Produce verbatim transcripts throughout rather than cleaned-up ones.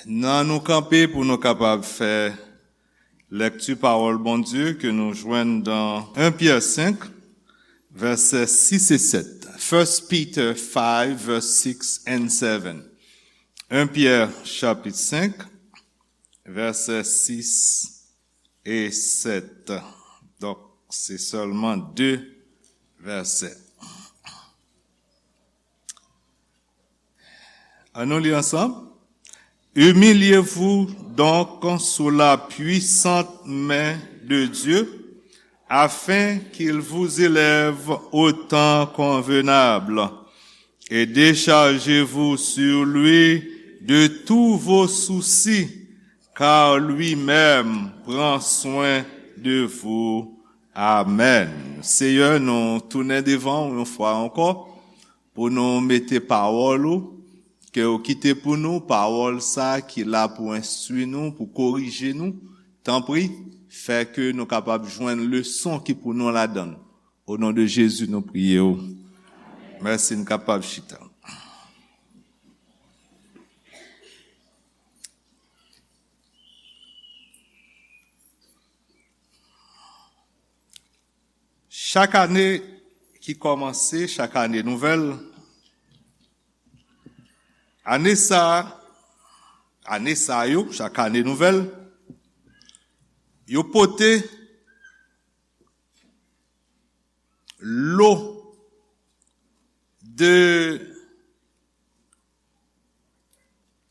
Nan nou kanpe pou nou kapab fè lèkti pawòl Bondye ke nou jwenn dan en Pyè senk, vèsè sis e sèt. First Peter five, verse six and seven. En Pyè chapit senk, vèsè sis e sèt. Donk, se sèlman de vèsè. Ann nou li ansanm. Humiliez-vous donc sous la puissante main de Dieu, afin qu'il vous élève au temps convenable, et déchargez-vous sur lui de tous vos soucis, car lui-même prend soin de vous. Amen. Seyè, nou tounen devan w yon fwa ankò pou nou mete pawòl ou, ke ou kite pou nou, pawòl sa ki la pou enstwi nou, pou korije nou. Tanpri, fè ke nou kapab jwenn leson ki pou nou ladan l. O non de Jezi, nou priye w. Mèsi, n kapab chita. Chak ane ki kòmanse, chak ane nouvèl, ane sa, ane sa yo, chak ane nouvèl, yo pote lo de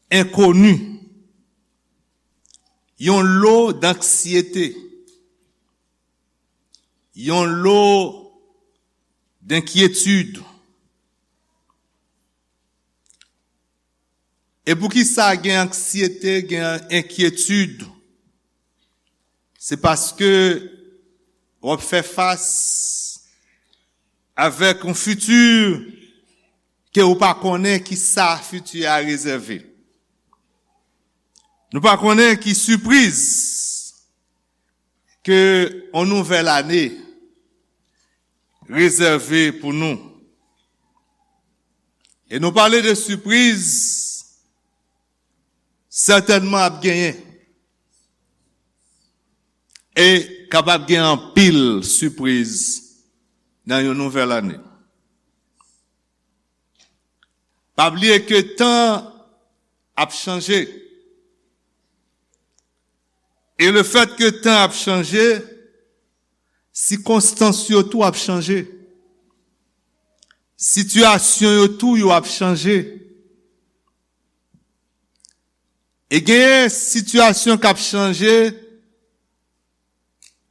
enkoni, yon lo d'anksyete, yon lo d'enkyetid. E poukisa gen anksyete, gen enkyetid? Se paske w ap fè fas avèk yon fiti ke ou pa konnen ki sa fiti a rezève. Nou pa konnen ki sipriz ke yon nouvèl ane rezève pou nou. E nou pale de sipriz, sètènman ap genyen. E kapab gen anpil sipriz nan yon nouvèl ane. Pa bliye ke tan ap chanje. E le fèt ke tan ap chanje, sikonstans yo tou ap chanje. Sitiyasyon yo tou yo ap chanje. E genyen sitiyasyon k ap chanje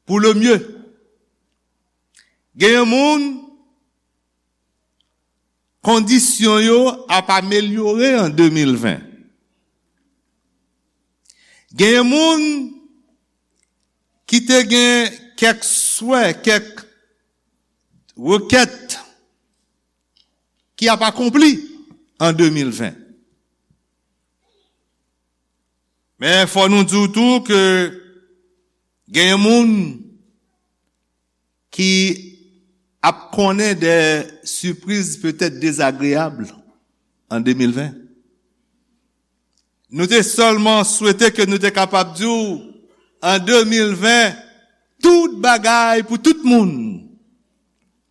pou le mieux. Genyen moun, kondisyon yo ap amelyore an de mil ven. Genyen moun ki te gen kèk swè, kèk rekèt ki ap akonpli an de mil ven. Men fò nou di w tou ke genyen moun ki ap konnen de sipriz petèt dezagreyab an de mil ven. Nou te sèlman swete ke nou te kapab di w, an de mil ven, tout bagay pou tout moun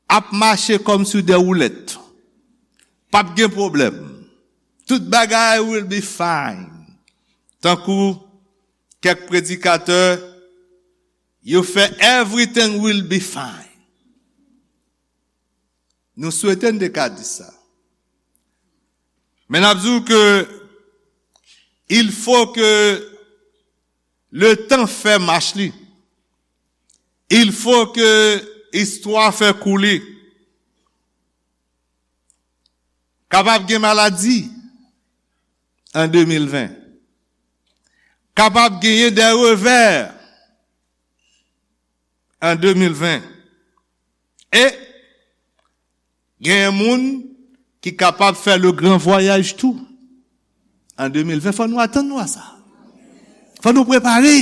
ap mache kòmsi de woulèt. P ap gen pwoblèm. Tout bagay will be fine. Tankou kèk predikatè, yo fè everything will be fine. Nou swete n te ka di sa. Men n ap di w ke il faut que le temps fè mach li. Il faut que istwa fè kou li. Kapab gen maladi an de mil ven. Kapab genyen de revè an de mil ven. E genyen moun ki kapab fè le gran vwayaj tou an de mil ven. Fò nou atann nou a sa. Fò nou prepare.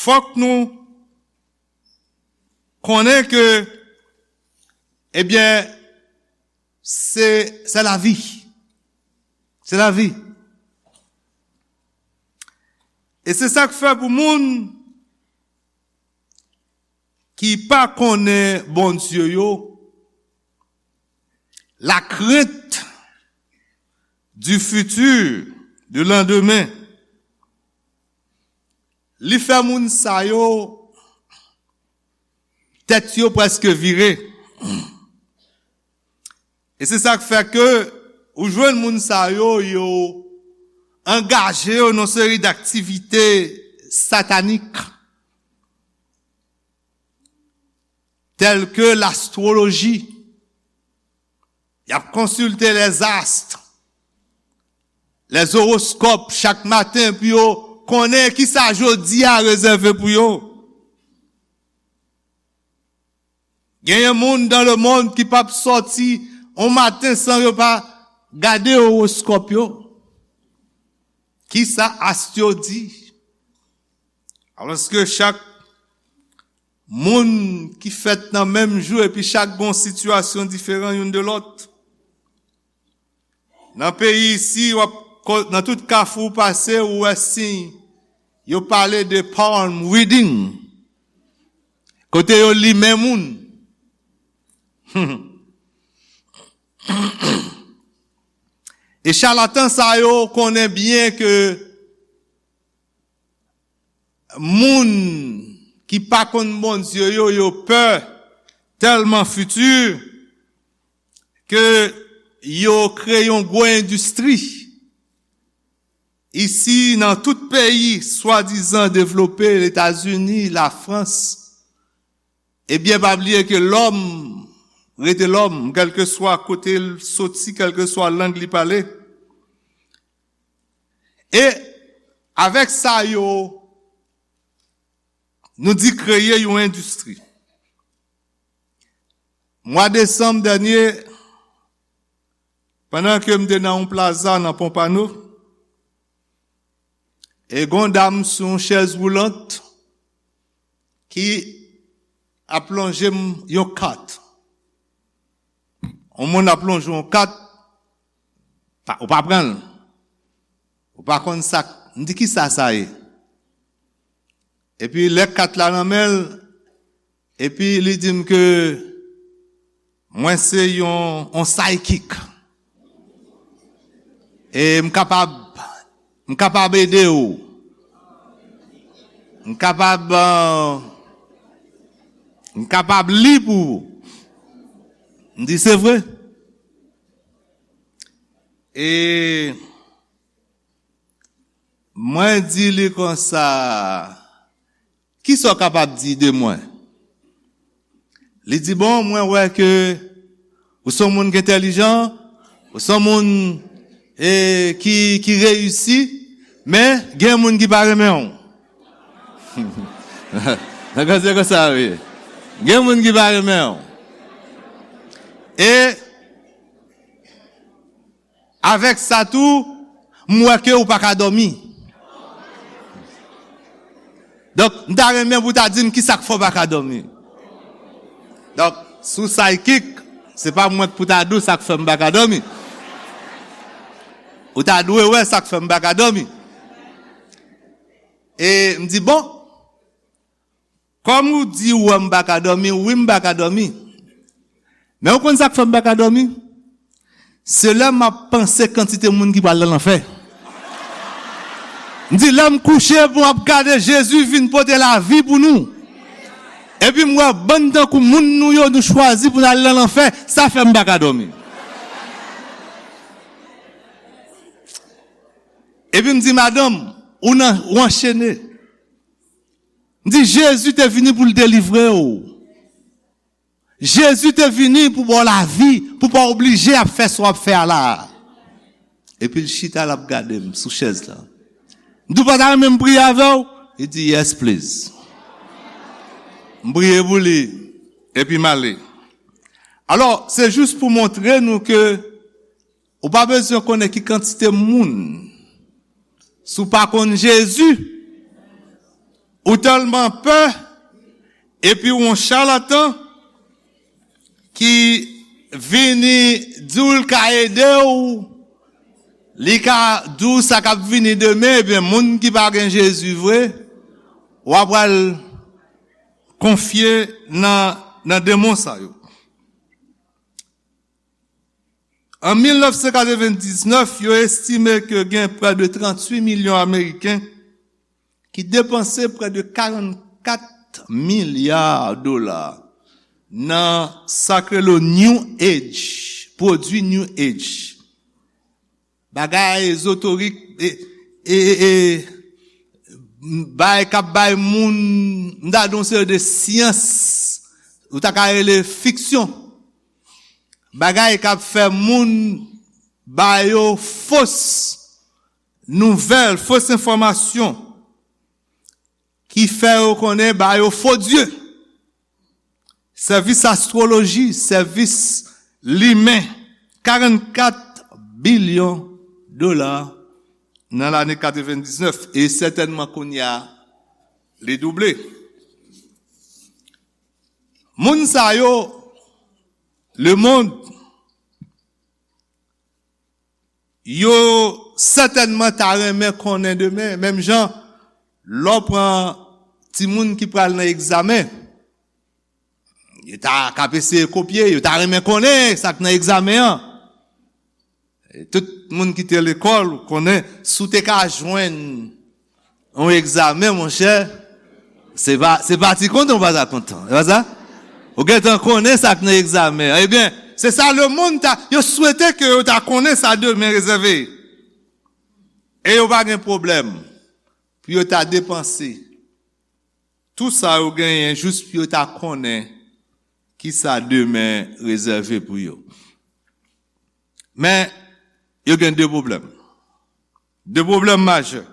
Fòk nou konnen ke, ebyen, se, se lavi. C'est la vie. E se sa k fè pou moun ki pa konnen Bondye yo, la crainte du futur, du lendemain, li fè moun sa yo, tèt yo prèske vire. E se sa k fè ke ou jwenn moun sa yo, yo angaje yo nan seri daktivite satanik, tèl ke lastwoloji. Y ap konsilte lèzast, lèzoroskòp chak maten pou yo konnen kisa jodi a rezève pou yo. Genyen moun dans le monde ki p ap sòti on maten san yo pa gade owoskòp yo. Kisa ast yo di? Alòske chak moun ki fèt nan menm jou epi chak gen yon sitiyasyon diferan youn de lòt. Nan peyi isi, w ap ko-, nan tout kafou w pase, ou wè siy yo pale de palm reading. Kote yo limen moun. E chalatan sa yo konnen byen ke moun ki pa konn Bondye yo, yo pè tèlman fiti ke yo kreye yon gwo endistri isi nan tout peyi swadizan devlope, Letazini, Lafrans. Ebyen, pa bliye ke lòm rete lòm, kèlkeswa kote l soti, kèlkeswa lang li pale. E avèk sa yo, nou di kreye yon endistri. Mwa desanm dènye, pandan ke m te nan yon plaza nan Pompano, e gon dam sou yon chèz woulant ki ap lonje m yon kat. Yon moun ap lonje yon kat, pa, ou pa pran l. Ou pa konn sa k, m di, "Kisa sa ye?" Epi lè kat la nan men l, epi li di m ke mwen se yon, yon psychic. E m kapab, m kapab ede w. M kapab, euh, m kapab li pou ou. M di, "Se vre?" E mwen di li konsa, "Kisa w kapab di de mwen?" Li di, "Bon, mwen wè ke ou se yon moun ki entèlijan, ou se yon moun, e, ki, ki reyisi, men gen moun ki pa renmen w." Nan konsa, konsa, wi. Gen moun ki pa renmen w. E avèk sa tou, m wè ke ou pa ka dòmi. Donk, m ta renmen pou w ta di m kisa k fè w pa ka dòmi. Donk, si w psychic, se pa mwen k pou ta di w sa k fè m pa ka dòmi. Ou ta dwe wè sa k fè m pa ka dòmi. E m di, "Bon, kòm ou di ou wè m pa ka dòmi, wi, m pa ka dòmi. Men ou konn sa k fè m pa ka dòmi? Se lè m ap panse kantite moun ki pral nan lanfè." M di, "Lè m kouche, pou m ap gade Jezi vin pote lavi pou nou. Epi m wè bann tankou moun nou yo, nou chwazi pou n al nan lanfè, sa fè m pa ka dòmi." Epi m di, "Madanm, ou nan, ou anchene." M di, "Jezi te vini pou l delivre w. Jezi te vini pou ba w lavi, pou w pa oblije ap fè sa w ap fè a la a." Epi l chita, l ap gade m sou chèz la. M di, "Ou pa ta renmen m priye avè w?" Li di, "Yes, please." M priye pou li, epi m ale. Alò, se jis pou montre nou ke ou pa bezwen konnen ki kantite moun, si w pa konn Jezi, ou tèlman pè, epi w yon chalatan ki vini di w l ka ede w, Li ka di w sa k ap vini demen, ebyen, moun ki pa gen Jezi vre, w ap pral konfye nan, nan demon sa yo. An mil nèf san katrevendiznèf, yo estime ke gen prè de tranntuit milyon Ameriken ki depanse prè de karannkat milya dola nan sa k rele New Age, pwodui New Age. Bagay ezoterik, e, e, e, e, bagay k ap bay moun, m ta di yon seri de syans, ou ta ka rele fiksyon. Bagay k ap fè moun ba yo fos nouvèl, fos enfòmasyon ki fè yo konnen ba yo fo dye. Sèvis astwoloji, sèvis limen, karannkat bilyon dola nan lane katrevendiznèf, e sètènman kounye a, li double. Moun sa yo, lemonn, yo sètènman ta renmen konnen demen, menm jan lè w pran timoun ki pral nan egzamen, yo ta k ap eseye kopye, yo ta renmen konnen sa k nan egzamen an. E tout moun ki te lekòl, ou konnen, si w te ka jwenn yon egzamen, monchè, se pa, se pa ti kontan ou pa ta kontan. Se pa sa? Ou gentan konnen sa k nan egzamen an. Ebyen, se sa lemonn ta, yo swete ke yo ta konnen sa demen rezève. E yo pa gen pwoblèm pou yo ta depanse tou sa yo genyen jis pou yo ta konnen ki sa demen rezève pou yo. Men, yo gen de pwoblèm. De pwoblèm majè.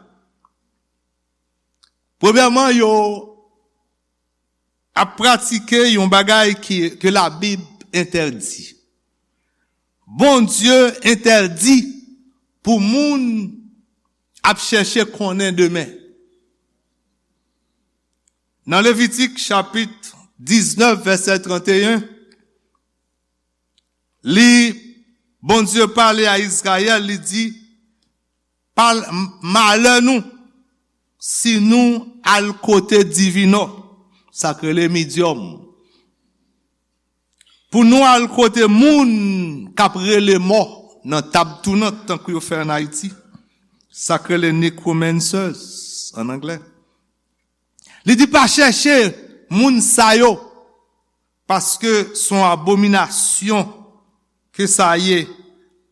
Premyèman, yo ap pratike yon bagay ki, ke Labib entèdi. Bondye entèdi pou moun ap chèche konnen demen. Nan Levitik chapit diznèf, vèsè tranteyen, li, Bondye pale a Izrayèl, li di, "Pal-, m-, malè nou si nou al kote divinò, sa k rele midyòm, pou nou al kote moun k ap rele mò nan tab tounant, tankou yo fè ann Ayiti, sa k rele necromancers ann anglè." Li di, "Pa chèche moun sa yo, paske se yon abominasyon ke sa ye,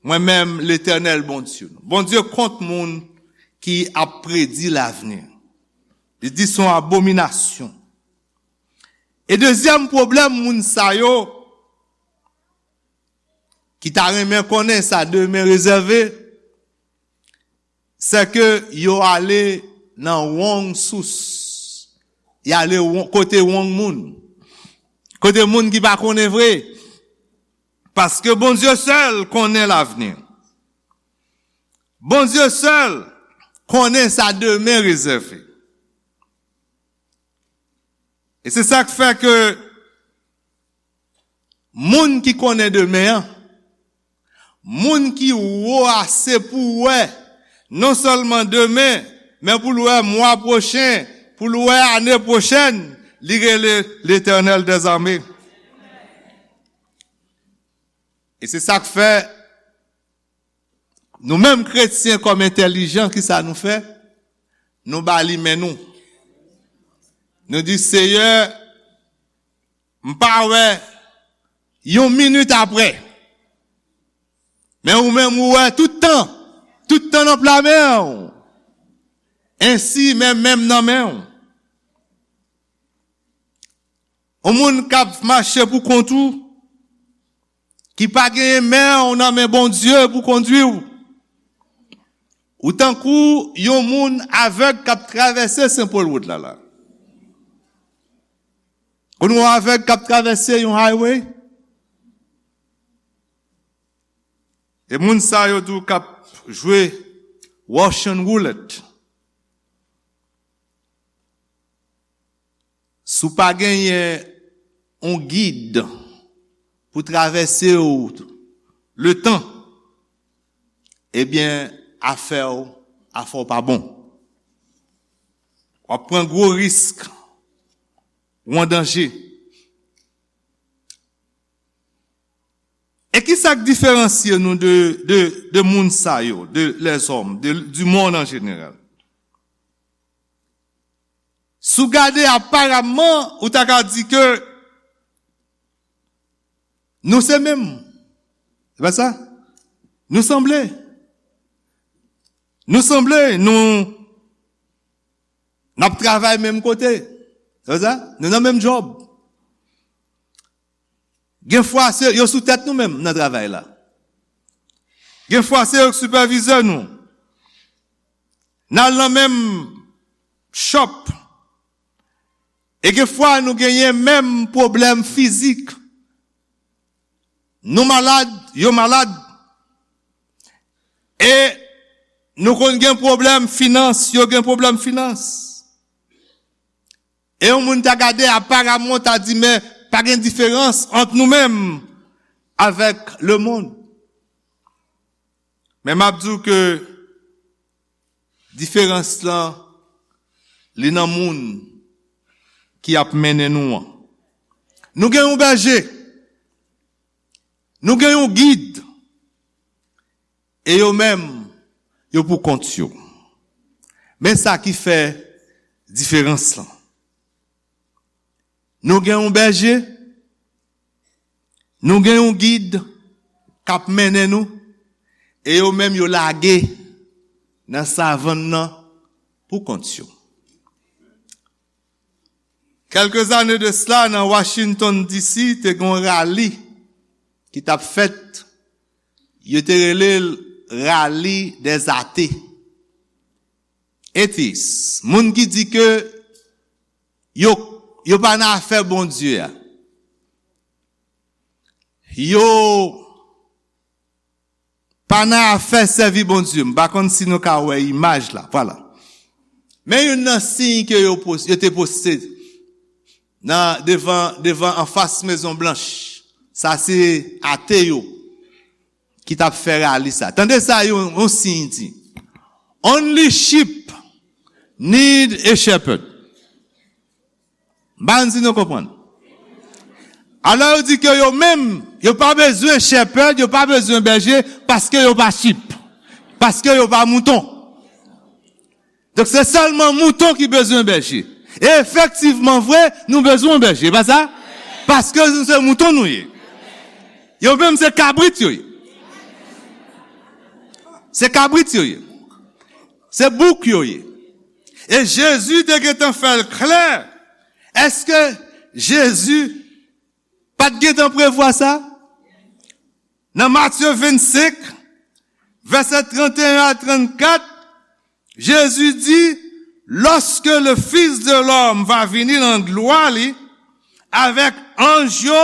mwen menm, Letènèl Bondye nou." Bondye kont moun ki ap predi lavni. Li di, "Se yon abominasyon." E dezyèm pwoblèm moun sa yo ki ta renmen konnen sa demen rezève, se ke yo ale nan wrong source. Y ale won-, kote wrong moun. Kote moun ki pa konnen vre. Paske Bondye sèl konnen lavni. Bondye sèl konnen sa demen rezève. E se sa k fè ke moun ki konnen demen an, moun ki wo ase pou wè, non sèlman demen, men pou l wè mwa pwochen, pou l wè ane pwochèn, li rele Letènèl dèzame. E se sa k fè, nou menm kretyen kòm entèlijan, ki sa nou fè? Nou ba li men nou. Nou di, "Seyè, m pa wè yon minit apre. Men ou menm ou wè tout tan. Tout tan nan pla men w. Ensi men men m nan men w." Yon moun k ap mache pou kont ou, ki pa genyen men w nan men Bondye pou kondui w. Ou tankou yon moun avèg k ap travèse Sen Pòl wout la la. Konn yon avèg k ap travèse yon highway? E moun sa yo tou k ap jwe Russian roulette. Si w pa genyen yon gid pou travèse w letan, ebyen, afè w, afè w pa bon. W ap pran gwo risk, ou an danje. E ki sa k diferansye nou de, de, de moun sa yo, de lèzòm, de, du monde en général? Si w gade aparamman, ou ta ka di ke nou se menm. Se pa sa? Nou sanble. Nou sanble, nou, n ap travay menm kote. Se pa sa? Nou nan menm djòb. Gen fwa se yo sou tèt nou menm nan travay la. Gen fwa se yo k sipèvizè nou. N al nan menm shop. E gen fwa nou genyen menm pwoblèm fizik. Nou malad, yo malad. E nou konn gen pwoblèm finans, yo gen pwoblèm finans. E yon moun ta gade, aparamman, ta di, men pa gen diferans ant nou menm avèk lemonn. Men m ap di w ke diferans lan, li nan moun ki ap mennen nou an. Nou gen yon bèje. Nou gen yon gid. E yo menm, yo pou kont yo. Men sa ki fè diferans lan. Nou gen yon bèje, nou gen yon gid k ap mennen nou, e yo menm yo lage nan savann nan pou kont yo. Kèlke zane de sila, nan Washington D C, te gen yon rali ki t ap fèt. Yo te rele l rali dè zate. Atheist. Moun ki di ke yo, yo pa nan afè Bondye a. Yo pa nan afè sèvi Bondye. M pa konn si nou ka wè imaj la. Vwala. Men youn nan siy ke yo pos-, yo te poste nan devan, devan anfas Mezon Blanch. Sa se ate yo ki t ap fè rali sa. Tande sa yon, yon siy di. Only sheep need a shepherd. M pa konn si nou konprann. Alò yo di ke yo menm, yo pa bezwen shepherd, yo pa bezwen bèje, paske yo pa sheep. Paske yo pa mouton. Donk se sèlman mouton ki bezwen bèje. E efektivman vre, nou bezwen yon bèje, pa sa? Paske nou se mouton nou ye. Yo menm se kabrit yo ye. Se kabrit yo ye. Se bouk yo ye. E Jezi te gentan fè l klè. Èske Jezi pa t gentan prevwa sa? Nan Matye vennsenk, vèsè trannteyen a trannkat, Jezi di, lorsque le Fils de l'homme va vini nan glwa li, avèk anj yo,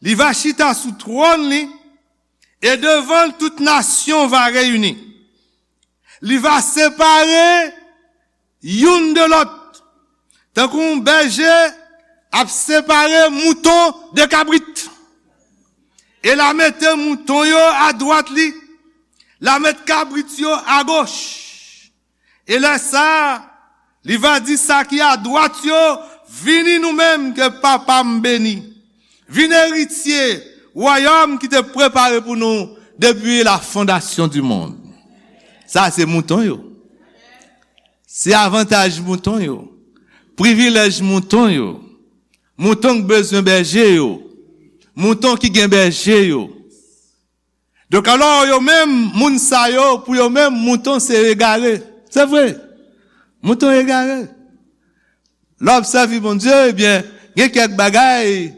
li va chita sou twòn li, e devan l tout nasyon va reyini. Li va separe youn de lòt, tankou yon bèje ap separe mouton de kabrit. E l a mete mouton yo adwat li, l a met kabrit yo agoch. E lè sa a, li va di sa ki adwat yo, vini nou menm ke Papa m beni. Vin eritye wayòm ki te prepare pou nou depi la fondasyon di mond. Sa se mouton yo. Se avantaj mouton yo. Privilèj mouton yo. Mouton k bezwen bèje yo. Mouton ki gen bèje yo. Donk alò, yo menm, moun sa yo, pou yo menm, mouton se egare. Se vre. Mouton egare. Lè w ap sèvi Bondye, ebyen, gen kèk bagay,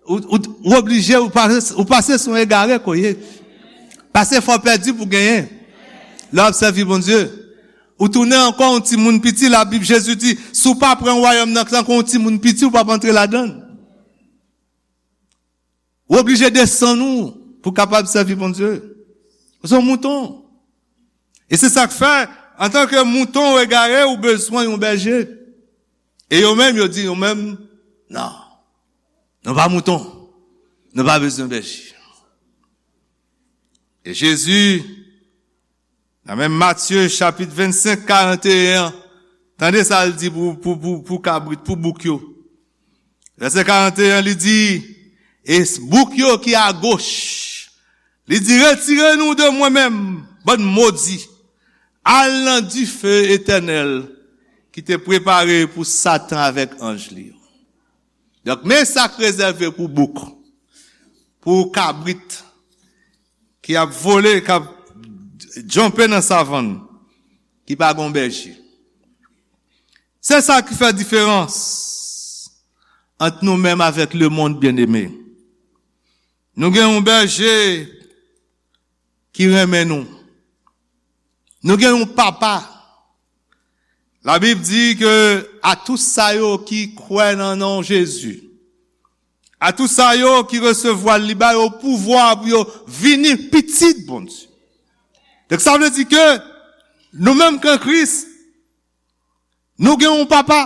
ou, ou, ou oblije, ou pase, ou pase sou egare ke w ye. Pase fò pèdi pou genyen. Lè w ap sèvi Bondye, ou tounen ankò yon timoun piti, Labib, Jezi di, si w pa pran wayòm nan tankou yon timoun piti, ou p ap antre ladan l. Ou oblije desann ou pou w kapab sèvi Bondye. Ou se yon mouton. E se sa k fè, antanke mouton ou egare, ou bezwen yon bèje. E yo menm, yo di, yo menm, non. Nou pa mouton. Nou pa bezwen bèje. E Jezi Nan menm Matye chapit vennsenk, karanteyen an, tande sa l di pou, pou, pou, pou kabrit, pou bouk yo. Vèsè karanteyen an, li di, e bouk yo ki agoch, li di, retire nou de mwen menm, bann modi, al nan dife etènèl ki te prepare pou Satan avèk anj li yo. Donk, men sa k rezève pou bouk, pou kabrit ki ap vole, k ap djanpe nan savann, ki pa gon bèje. Se sa ki fè diferans ant nou menm avèk lemonn, byeneme. Nou gen yon bèje ki renmen nou. Nou gen yon papa. Labib di ke a tout sa yo ki kwè nan non Jezi, a tout sa yo ki resevwa l, li ba yo pouvwa pou yo vini pitit Bondye. Donk, sa vle di ke nou menm k an Kris, nou gen yon papa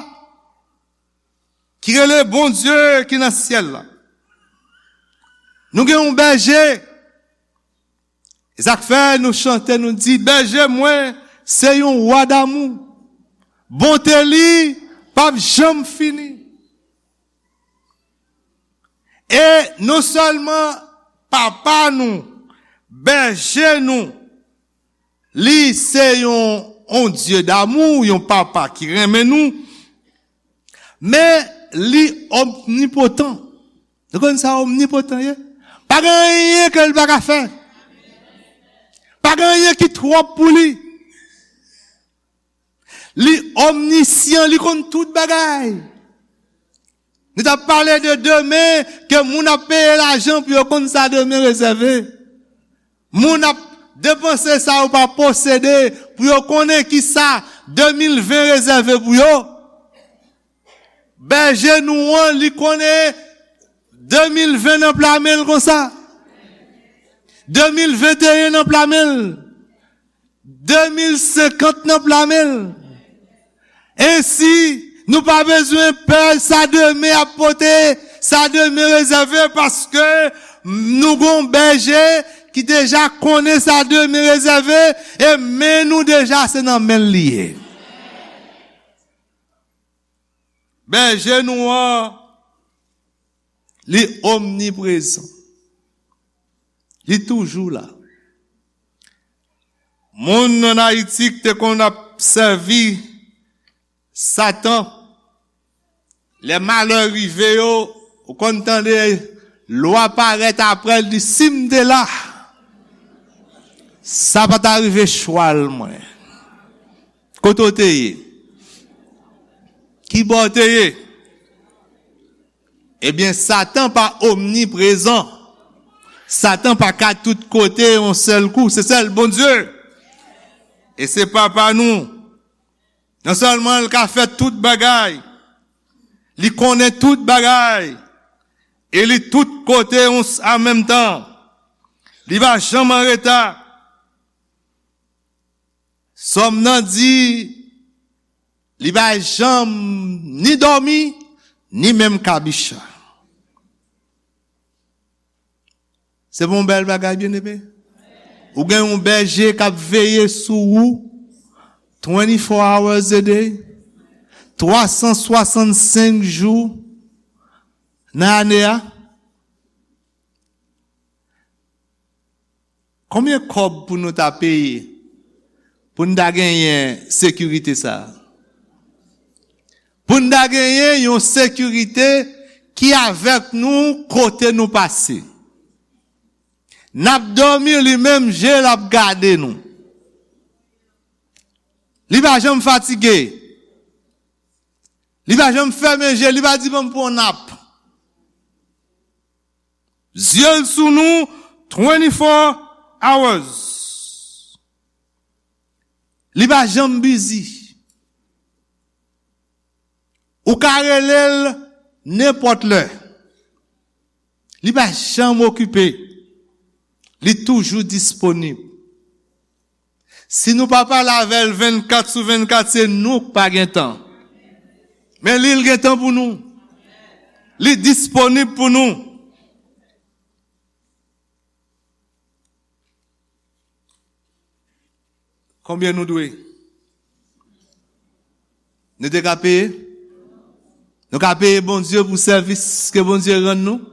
ki rele Bondye ki nan syèl la. Nou gen yon bèje. E sa k fè nou chante, nou di, bèje mwen, se yon wa damou. Bonte li p ap janm fini. E non sèlman papa nou, bèje nou, li se yon, yon Dye damou, yon papa ki renmen nou, men li omnipotan. Nou konn sa omnipotan ye? Pa gen anyen ke l pa ka fè. Pa gen anyen ki twòp pou li. Li omnisyan, li konn tout bagay. Nou t ap pale de demen, ke moun ap peye lajan pou yo konn sa demen rezève. Moun ap depanse sa yo pa posede pou yo konnen ki sa de mil ven rezève pou yo. Bèje nou an, li konnen de mil ven nan pla men l konsa. De mil venteyen nan pla men l. De mil senkant nan pla men l. Ensi, nou pa bezwen pè sa demen ap pote, sa demen rezève, paske nou gon bèje ki deja konnen sa demen rezève, e men nou deja se nan men l li ye. Bèje nou an, li omniprezan. Li toujou la. Moun ann Ayiti ki te konn ap sèvi Satan, lè malè rive yo, ou konn tande lwa parèt apre l di, si m te la, sa pa ta rive chwal mwen. Kote w te ye? Ki bò w te ye? Ebyen, Satan pa omniprezan. Satan pa ka tout kote yon sèl kou. Se sèl Bondye. E se papa nou. Non sèlman l ka fè tout bagay, li konnen tout bagay, e li tout kote yon s-, an menm tan. Li pa janm an reta. Sòm nan di, li pa janm ni dòmi, ni menm kabicha. Se pa yon bèl bagay, byeneme? Ou gen yon bèje k ap veye sou ou twenty-four hours a day, twa san swasannsenk jou nan ane a. Konbyen kòb pou nou ta peye pou n ta genyen sekirite sa a? Pou n ta genyen yon sekirite ki avèk nou kote nou pase. N ap dòmi, li menm je l ap gade nou. Li pa janm fatige. Li pa janm fèmen je, li pa di, "Ban m pran yon nap." Zye l sou nou twenty-four hours. Li pa janm bizi. Ou ka rele l nenpòt lè. Li pa janm okipe. Li toujou disponib. Si nou pa pale avè l vennkat sou vennkat, se nou k pa gen tan. Men li, l gen tan pou nou. Li disponib pou nou. Konbyen nou dwe? Nou te ka peye? Nou ka peye Bondye pou sèvis ke Bondye rann nou?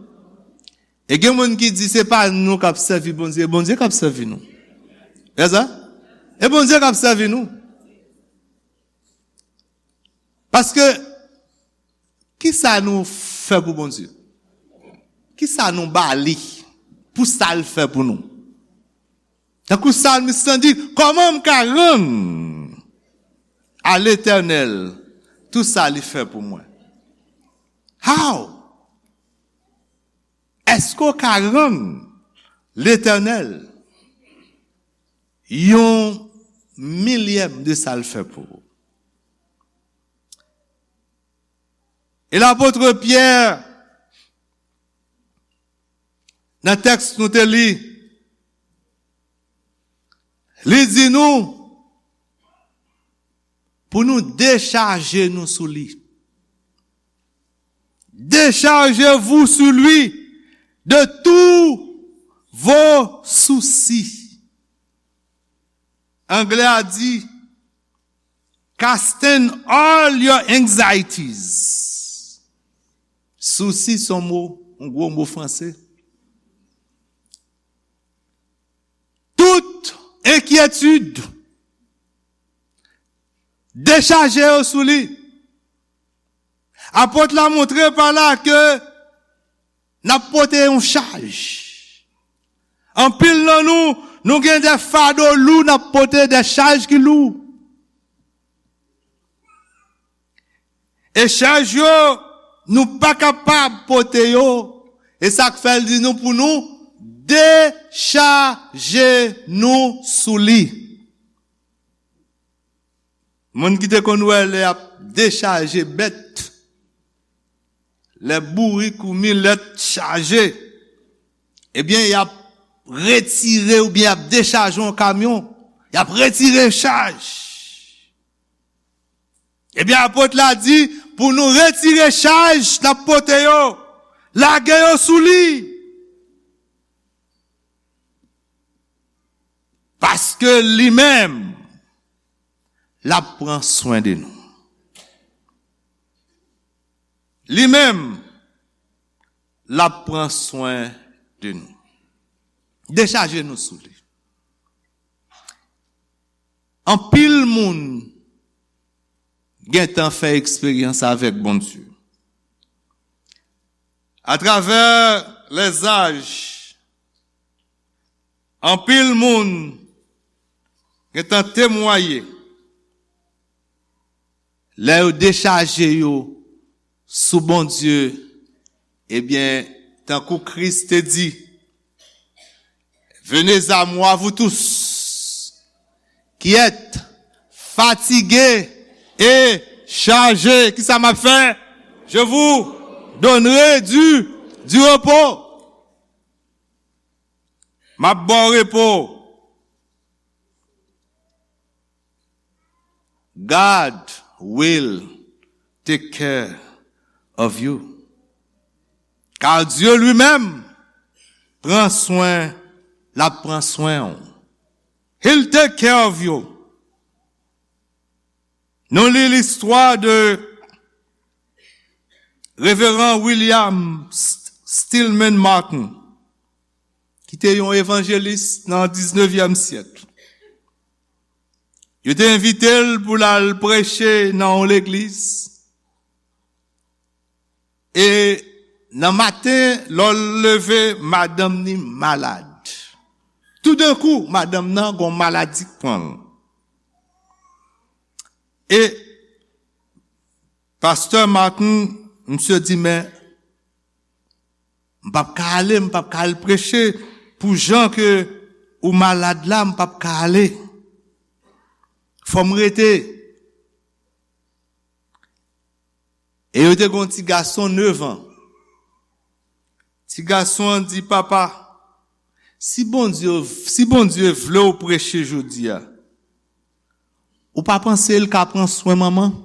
E gen moun ki di se pa nou k ap sèvi Bondye, e Bondye k ap sèvi nou. E sa? E Bondye k ap sèvi nou. Paske, ki sa nou fè pou Bondye? Ki sa nou ba li pou sa l fè pou nou? Tankou salmis lan di, kòman m ka rann a Letènèl tou sa li fè pou mwen? How? Èske w ka rann Letènèl yon milyèm de sa l fè pou ou? E lapot Pyè, nan tèks nou te li, li di nou pou nou dechaje nou sou li. Déchargez-vous sur lui de tous vos soucis. Anglè a di, casting all your anxieties. Sousi se yon mo, yon gwo mo franse. Tout enkyetid, dechaje yo sou li. Apot la montre pa la ke n ap pote yon chaj. Anpil nan nou, nou gen de fado lou n ap pote, de chaj ki lou. E chaj yo, nou pa kapab pote yo. E sa k fè l di nou pou nou dechaje nou sou li. Moun ki te konn wè lè y ap dechaje bèt, lè bourik ou milèt chaje, ebyen, y ap retire oubyen y ap dechaje yon kamyon, y ap retire chaj. Ebyen, apot la di, pou nou retire chaj n ap pote yo, lage yo sou li. Paske li menm, l ap pran swen de nou. Li menm, l ap pran swen de nou. Dechaje nou sou li. Anpil moun gentan fè eksperyans avèk Bondye. Atravè lèzaj, anpil moun gentan temwaye lè yo dechaje yo sou Bondye, ebyen, tankou Kris te di, venez à moi, vous tous qui êtes fatigués et chargés. Kisa m ap fè? Je vous donnerai du, du repos. M ap ba w repo. God will take care of you. Car Dieu lui-même pran swen, l ap pran swen w. He'll take care of you. Nou li listwa de Reveran William St-, Stillman Martin, ki te yon evanjelis nan diznevyèm syèk. Yo te envite l pou l al preche nan yon legliz. E nan maten, lè l leve, madanm ni malad. Toudenkou, madanm nan gon maladi k pran l. E pastè Martin, misye di, men, m p ap ka ale, m p ap ka al preche pou jan ke ou malad la, m p ap ka ale. Fò m rete. E yo te gen yon ti gason nev an. Ti gason an di, papa, si Bondye, si Bondye vle w preche jodi a, ou pa panse l ka pran swen manman?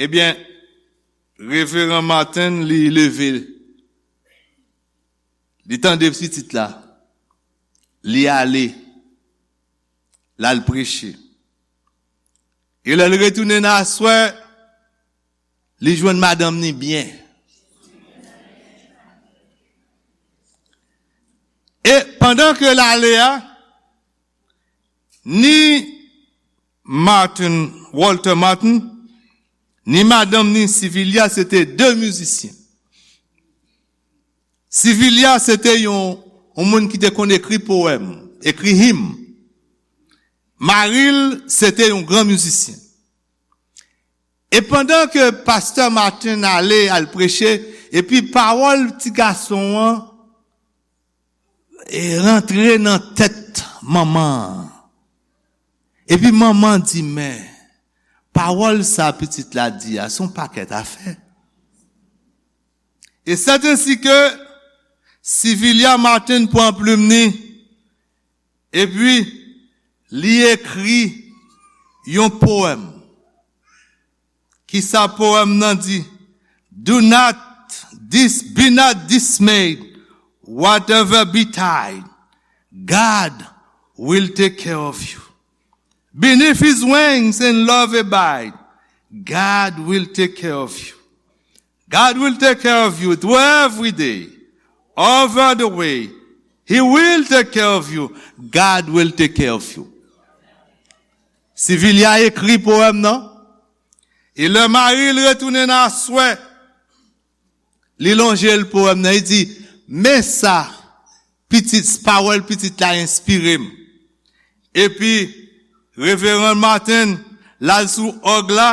Ebyen, Reveran Martin, li leve, li tande pitit la. Li ale, l al preche. E lè l retounen nan aswè, li jwenn madanm ni byen. E pandan ke l ale a, ni Martin, Walter Martin, ni madanm ni Sivilya, se te de mizisyen. Sivilya, se te yon, yon moun ki te konn ekri powèm, ekri him. Mari l, se te yon gran mizisyen. E pandan ke pastè Martin ale al preche, epi pawòl ti gason an e rantre nan tèt manman an. Epi manman di, men, pawòl sa pitit la di a, se yon pakèt afè. E sèt ensi ke Sivilya Martin pran plim ni, epi li ekri yon powèm. Kisa powèm nan di? Do not dis, be not dismayed, whatever betide, God will take care of you. Beneath his wings in love abide, God will take care of you. God will take care of you through every day, over the way. He will take care of you. God will take care of you. Sivilya ekri powèm nan. E lè mari l retounen nan aswè, li lonje l powèm nan, li di, men sa pitit, pawòl pitit la enspire m. Epi, Reveran Martin, l al sou òg la,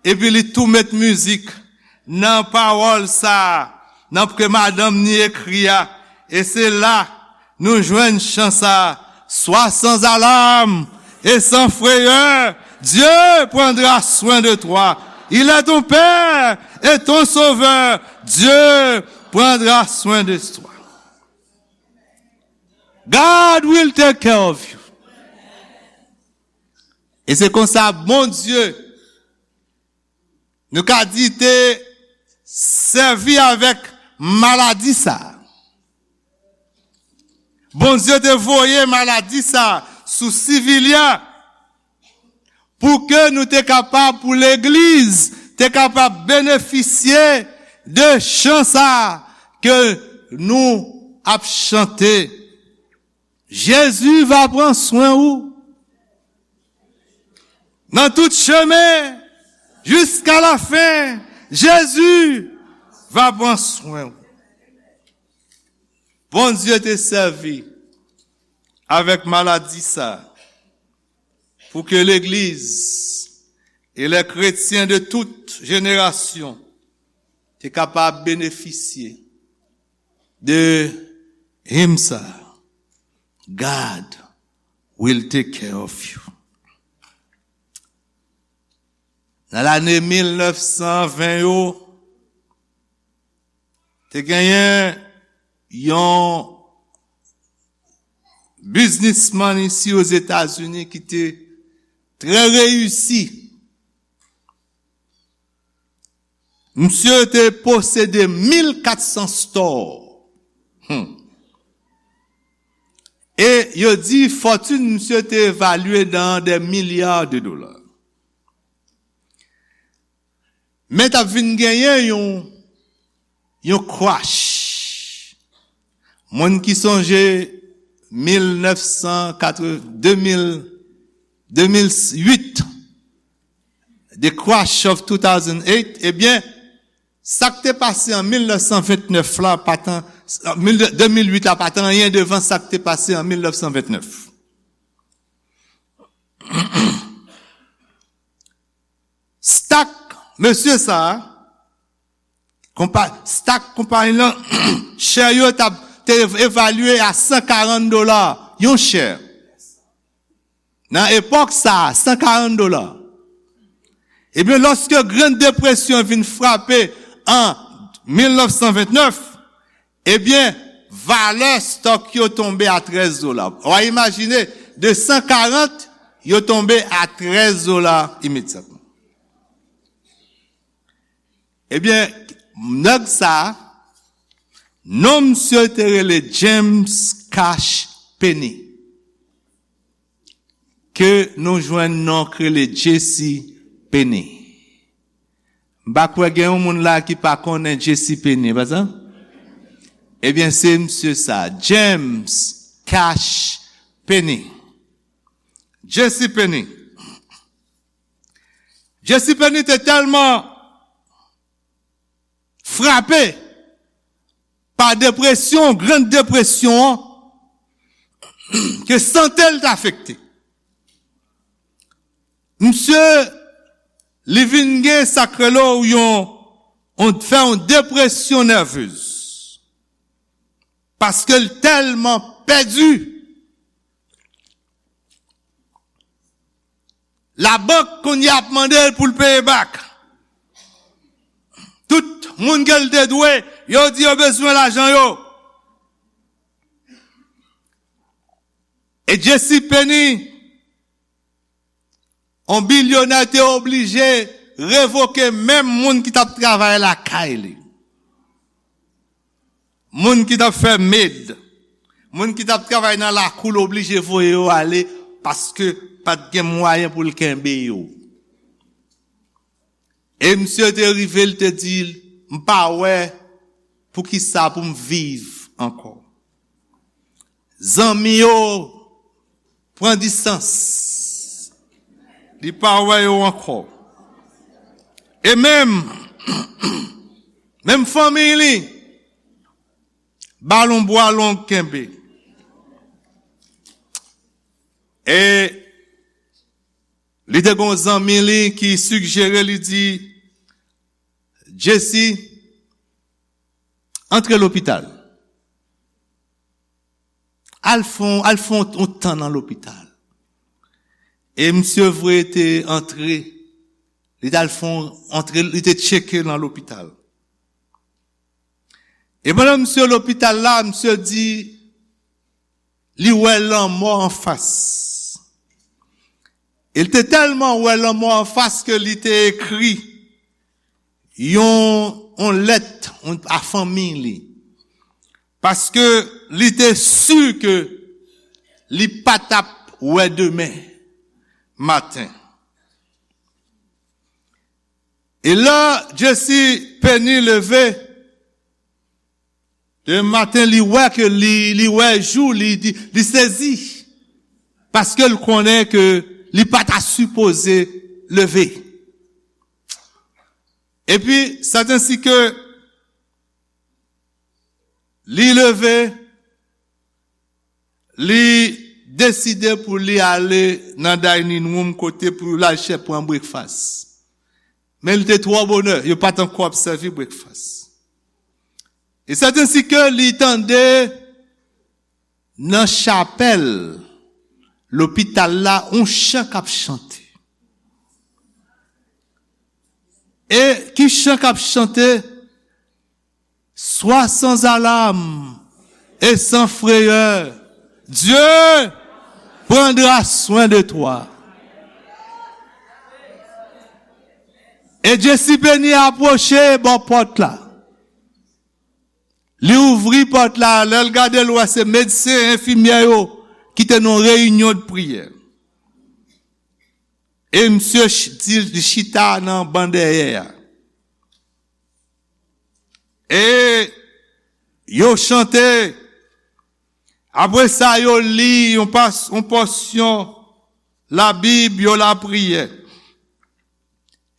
epi li tou met mizik nan pawòl sa a, nan ke madanm ni ekri a. E se la, nou jwenn chan sa a, sois sans alarme et sans frayeur, Dieu prendra soin de toi. Il est ton Père et ton Sauveur. Dieu prendra soin de toi. God will take care of you. E se konsa Bondye, nou ka di, te sèvi avèk maladi sa a. Bondye te voye maladi sa a sou Sivilya pou ke nou te kapab, pou legliz te kapab benefisye de chan sa a ke nou ap chante. Jezi va pran swen ou. Nan tout chemen, jiska lafen, Jezi va pran swen ou. Bondye te sèvi avèk maladi sa pou ke legliz e lè kretyen de tout jenerasyon te kapab benefisye de him sa, God will take care of you. Nan lane mil nèf san ven yo, te genyen yon biznismann isi Ozetazini ki te trè reyisi. Misye te posede mil kat san store. Hmm. E yo di fòtin misye te evalye nan de milya de dola. Men t ap vin genyen yon, yon crash. Moun ki sonje mil nèf san katreven, de mil, de mil uit, the crash of two thousand eight, ebyen, sa k te pase an mil nèf san vennèf la pa t an, mil, de mil uit la pa t anyen devan sa k te pase an mil nèf san vennèf. Stock mesye sa a, konpa-, stock konpayi lan, share yo t ap, te evalye a san karant dola yon share. Nan epòk sa a, san karant dola. Ebyen, lòske Gran Depresyon vin frape an mil nèf san vennèf, ebyen, valè stock yo tonbe a trèz dola. W a imajine, de san karant, yo tonbe a trèz dola imedyatman. Ebyen, nèg sa a, non misye te rele James Cash Penny. Ke nou jwenn non k rele Jesse Penny. M pa kwè gen yon moun la ki pa konnen Jesse Penny, pa sa? Ebyen, se misye sa, James Cash Penny. Jesse Penny. Jesse Penny te tèlman frape pa depresyon, Grann Depresyon an, ke sante l te afekte. Misye, li vin gen sa k rele yon, yon, fè yon depresyon nèvez. Paske l tèlman pèdi. Labank kounye a ap mande l pou l peye back. Tout moun ke l te dwe, yo di yo bezwen lajan yo. E Jesse Penny, yon bilyonè, te oblije revoke menm moun ki t ap travay lakay li. Moun ki t ap fè med, moun ki t ap travay nan lakou l, oblije voye yo ale paske pa t gen mwayen pou l kenbe yo. E misye te rive, l te di, "M pa wè poukisa pou m viv ankò." Zanmi yo pran distans. Li pa wè yo ankò. E menm, menm fanmi li, ba l yon bwa long kenbe. E li te gen yon zanmi li ki sigjere, li di, "Jesse, antre lopital. Al fè yon, al fè yon, yon tan nan lopital." E misye vre te antre, li t al fè yon antre, li te tcheke nan lopital. E pandan misye lopital la, misye di, li wè lanmò anfas. E l te tèlman wè lanmò anfas ke li te ekri yon, yon lèt, yon, a fanmi li. Paske li te si ke li pa t ap wè demen maten. E lè Jesse Penny leve, demen maten, li wè ke li, li wè jou, li, li, li sezi. Paske l konnen ke li pa ta sipoze leve. Epi, sètensi ke li leve, li deside pou li ale nan dining room kote pou l al chè pran breakfast. Men li te twò bonè, yo pa t ankò ap sèvi breakfast. E sètensi ke li tande nan chapèl lopital la, yon chan k ap chante. E ki chan k ap chante? Sois sans alarme et sans frayeur, Dieu prendra soin de toi. E Jesse Penny apwoche bò pòt la. Li ouvri pòt la, lè l gade, l wè se medsen, enfimyè yo ki te nan yon reyinyon de priyè. E misye ch-, di, li chita nan ban dèyè a. E yo chante. Apre sa, yo li yon pas-, yon pòsyon Labib, yo lapriyè.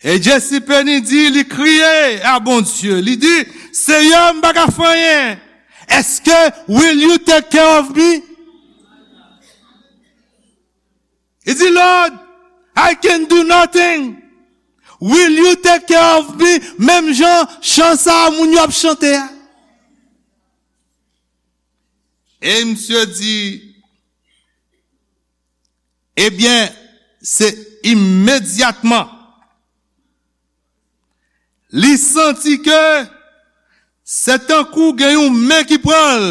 E Jesse Penny di, li kriye a Bondye. Li di, "Seyè, m pa ka fè anyen. Èske, will you take care of me?" Li di, "Lord, I can do nothing. Will you take care of me?" Menm jan chan sa a moun yo ap chante a. E misye di, ebyen, se imedyatman li santi ke se tankou gen yon men ki pran l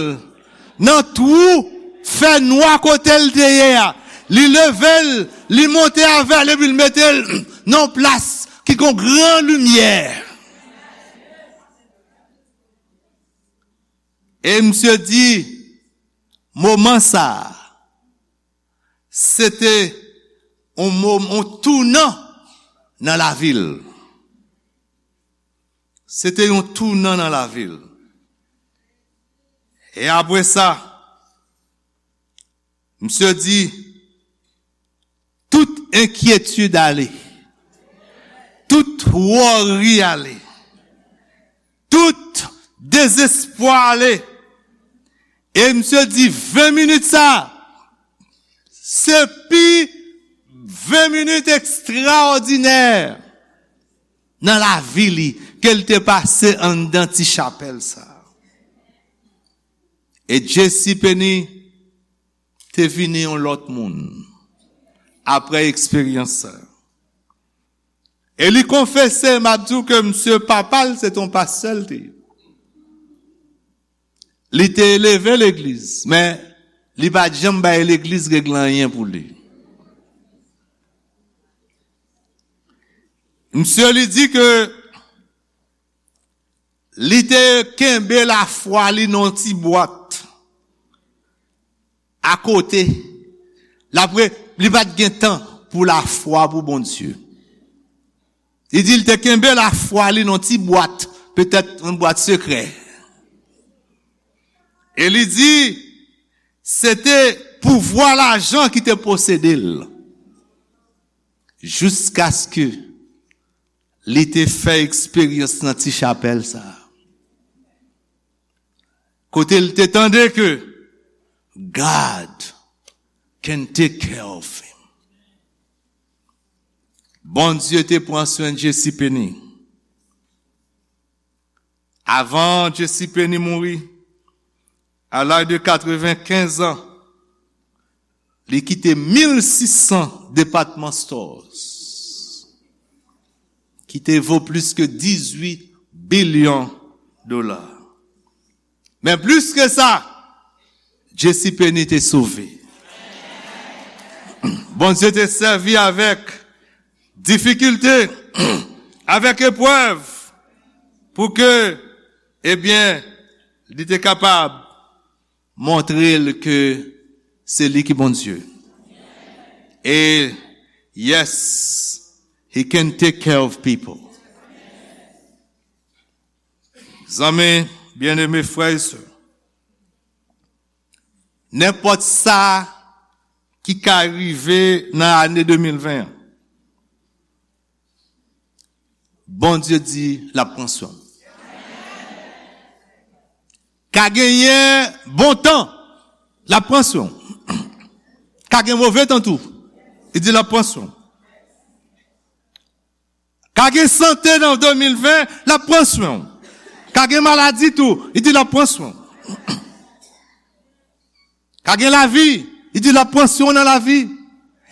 nan twou fènwa kote l te ye a. Li leve l, li monte avè l, epi l mete l nan yon plas ki gen yon gran limyè. E misye di, moman sa a, se te yon mo-, yon tounan nan lavi l. Se te yon tounan nan lavi l. E apre sa, misye di, tout enkyetid ale, tout wòri ale, tout dezespwa ale. E misye di, ven minit sa, se pi ven minit ekstraòdinè nan lavi li ke l te pase anndan ti chapèl sa. E J C Penney te vini yon lòt moun apre eksperyans sa. E li konfese, m ap di w ke misye papa l se te yon pastè l te ye. Li te eleve legliz, men li pa t janm bay legliz regle anyen pou li. Misye li di ke li te kenbe lafwa li nan yon ti bwat akote. L ap re-, li pa t gen tan pou lafwa pou Bondye. Li di l te kenbe lafwa li nan ti bwat, petèt yon bwat sekrè. E li di, se te pouvwa lajan ki te posede l. Jiskaske li te fè eksperyans nan ti chapèl sa a. Kote l te tande ke God can take care of him. Bondye te pran swen J C Penney. Avan J C Penney mouri, à l'âge de quatre-vingt-quinze ans, li kite mil sis san department stores, ki te vo plis ke dizuit bilyon dola. Men plis ke sa, J C Penney te sove. Bondye te sèvi avèk difikilte, avèk eprèv, pou ke, ebyen, li te kapab montre l ke se li ki Bondye. E, yes, he can take care of people. Zanmi byeneme, frè e sè, nenpòt sa ki ka rive nan ane de mil ven an, Bondye di l ap pran swen w. Ka genyen bon tan, l ap pran swen w. Ka gen move tan tou, li di l ap pran swen w. Ka gen sante nan de mil ven, l ap pran swen w. Ka gen maladi tou, li di l ap pran swen w. Ka gen lavi, li di l ap pran swen w nan lavi.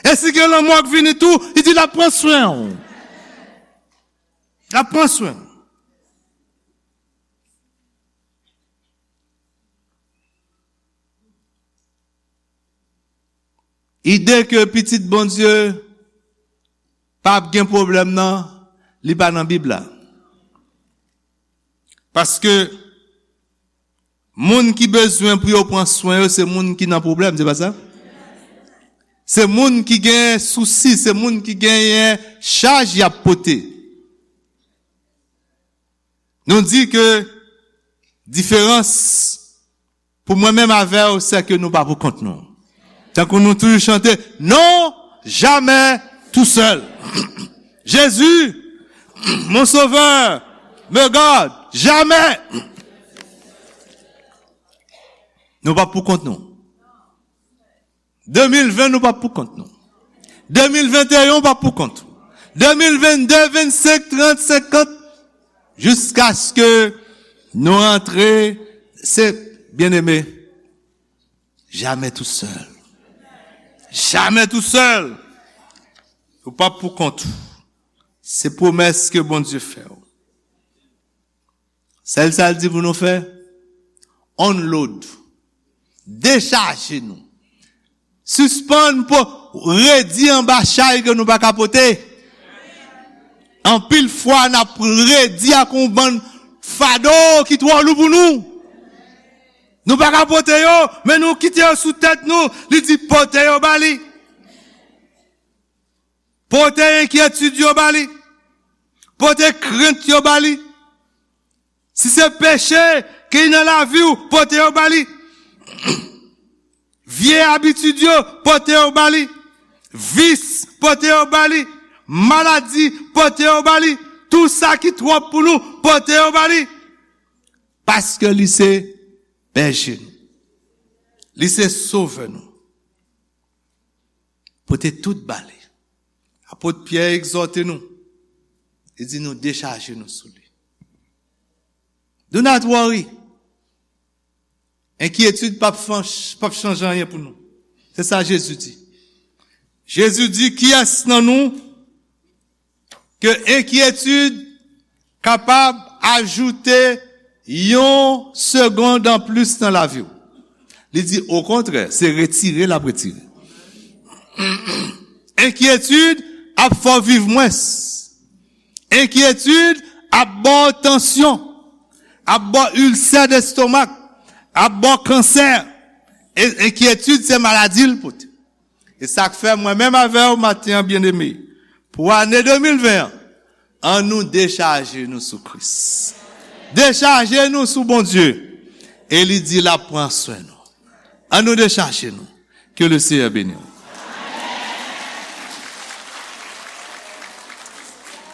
E si gen lanmò k vini tou, li di l ap pran swen w. L ap pran swen w. Ide ke pitit Bondye p ap gen pwoblèm nan, li pa nan Bib la. Paske moun ki bezwen pou yo pran swen yo, se moun ki nan pwoblèm, se pa sa? Se moun ki gen sousi, se moun ki genyen chaj y ap pote. Nou di ke diferans pou mwen menm avè w, se ke nou pa pou kont nou. Tankou nou toujou chante, non, jamais tout seul. Jésus, mon sauveur, me garde, jamais. Nou pa pou kont nou. De mil ven, nou p ap pou kont nou. De mil venteyen, w p ap pou kont ou. De mil vennde, vennsenk, trant, senkant, jiskaske nou rantre, se, byeneme, jamè tousèl. Jamè tousèl. Ou p ap pou kont ou. Se pwomès ke Bondye fè w. Sèl sa l di pou nou fè, unload. Dechaje nou. Sispann po-, redi anba chay ke nou pa ka pote. Anpil fwa, n ap redi ak yon bann fado ki twò lou pou nou. Nou pa ka pote yo, men nou kite yo sou tèt nou. Li di, pote yo ba li. Pote enkyetid yo ba li. Pote krent yo ba li. Si se peche ki nan lavi w, pote yo ba li. Vye abitid yo, pote yo ba li. Vis, pote yo ba li. Maladi, pote yo ba li. Tou sa ki twòp pou nou, pote yo ba li. Paske li se bèje nou. Li se sovè nou. Pote tout ba li. Apot Pyè egzòte nou. Li di nou dechaje nou sou li. Do not worry. Enkyetid p ap fan- p ap chanje anyen pou nou. Se sa Jezi di. Jezi di, kiyès nan nou ke enkyetid kapab ajoute yon segonn anplis nan lavi w? Li di, okontrè, se retire l ap retire. Enkyetid ap fè w viv mwens. Enkyetid ap ba w tansyon, ap ba w ilsè destomak, ap ba w kansè. E enkyetid se maladi l pote. E sa k fè mwen menm avè w maten an, byeneme, pou ane de mil ven an, an nou dechaje nou sou Kris. Dechaje nou sou Bondye. E li di l ap pran swen nou. An nou dechaje nou. Ke le Seyè beni w.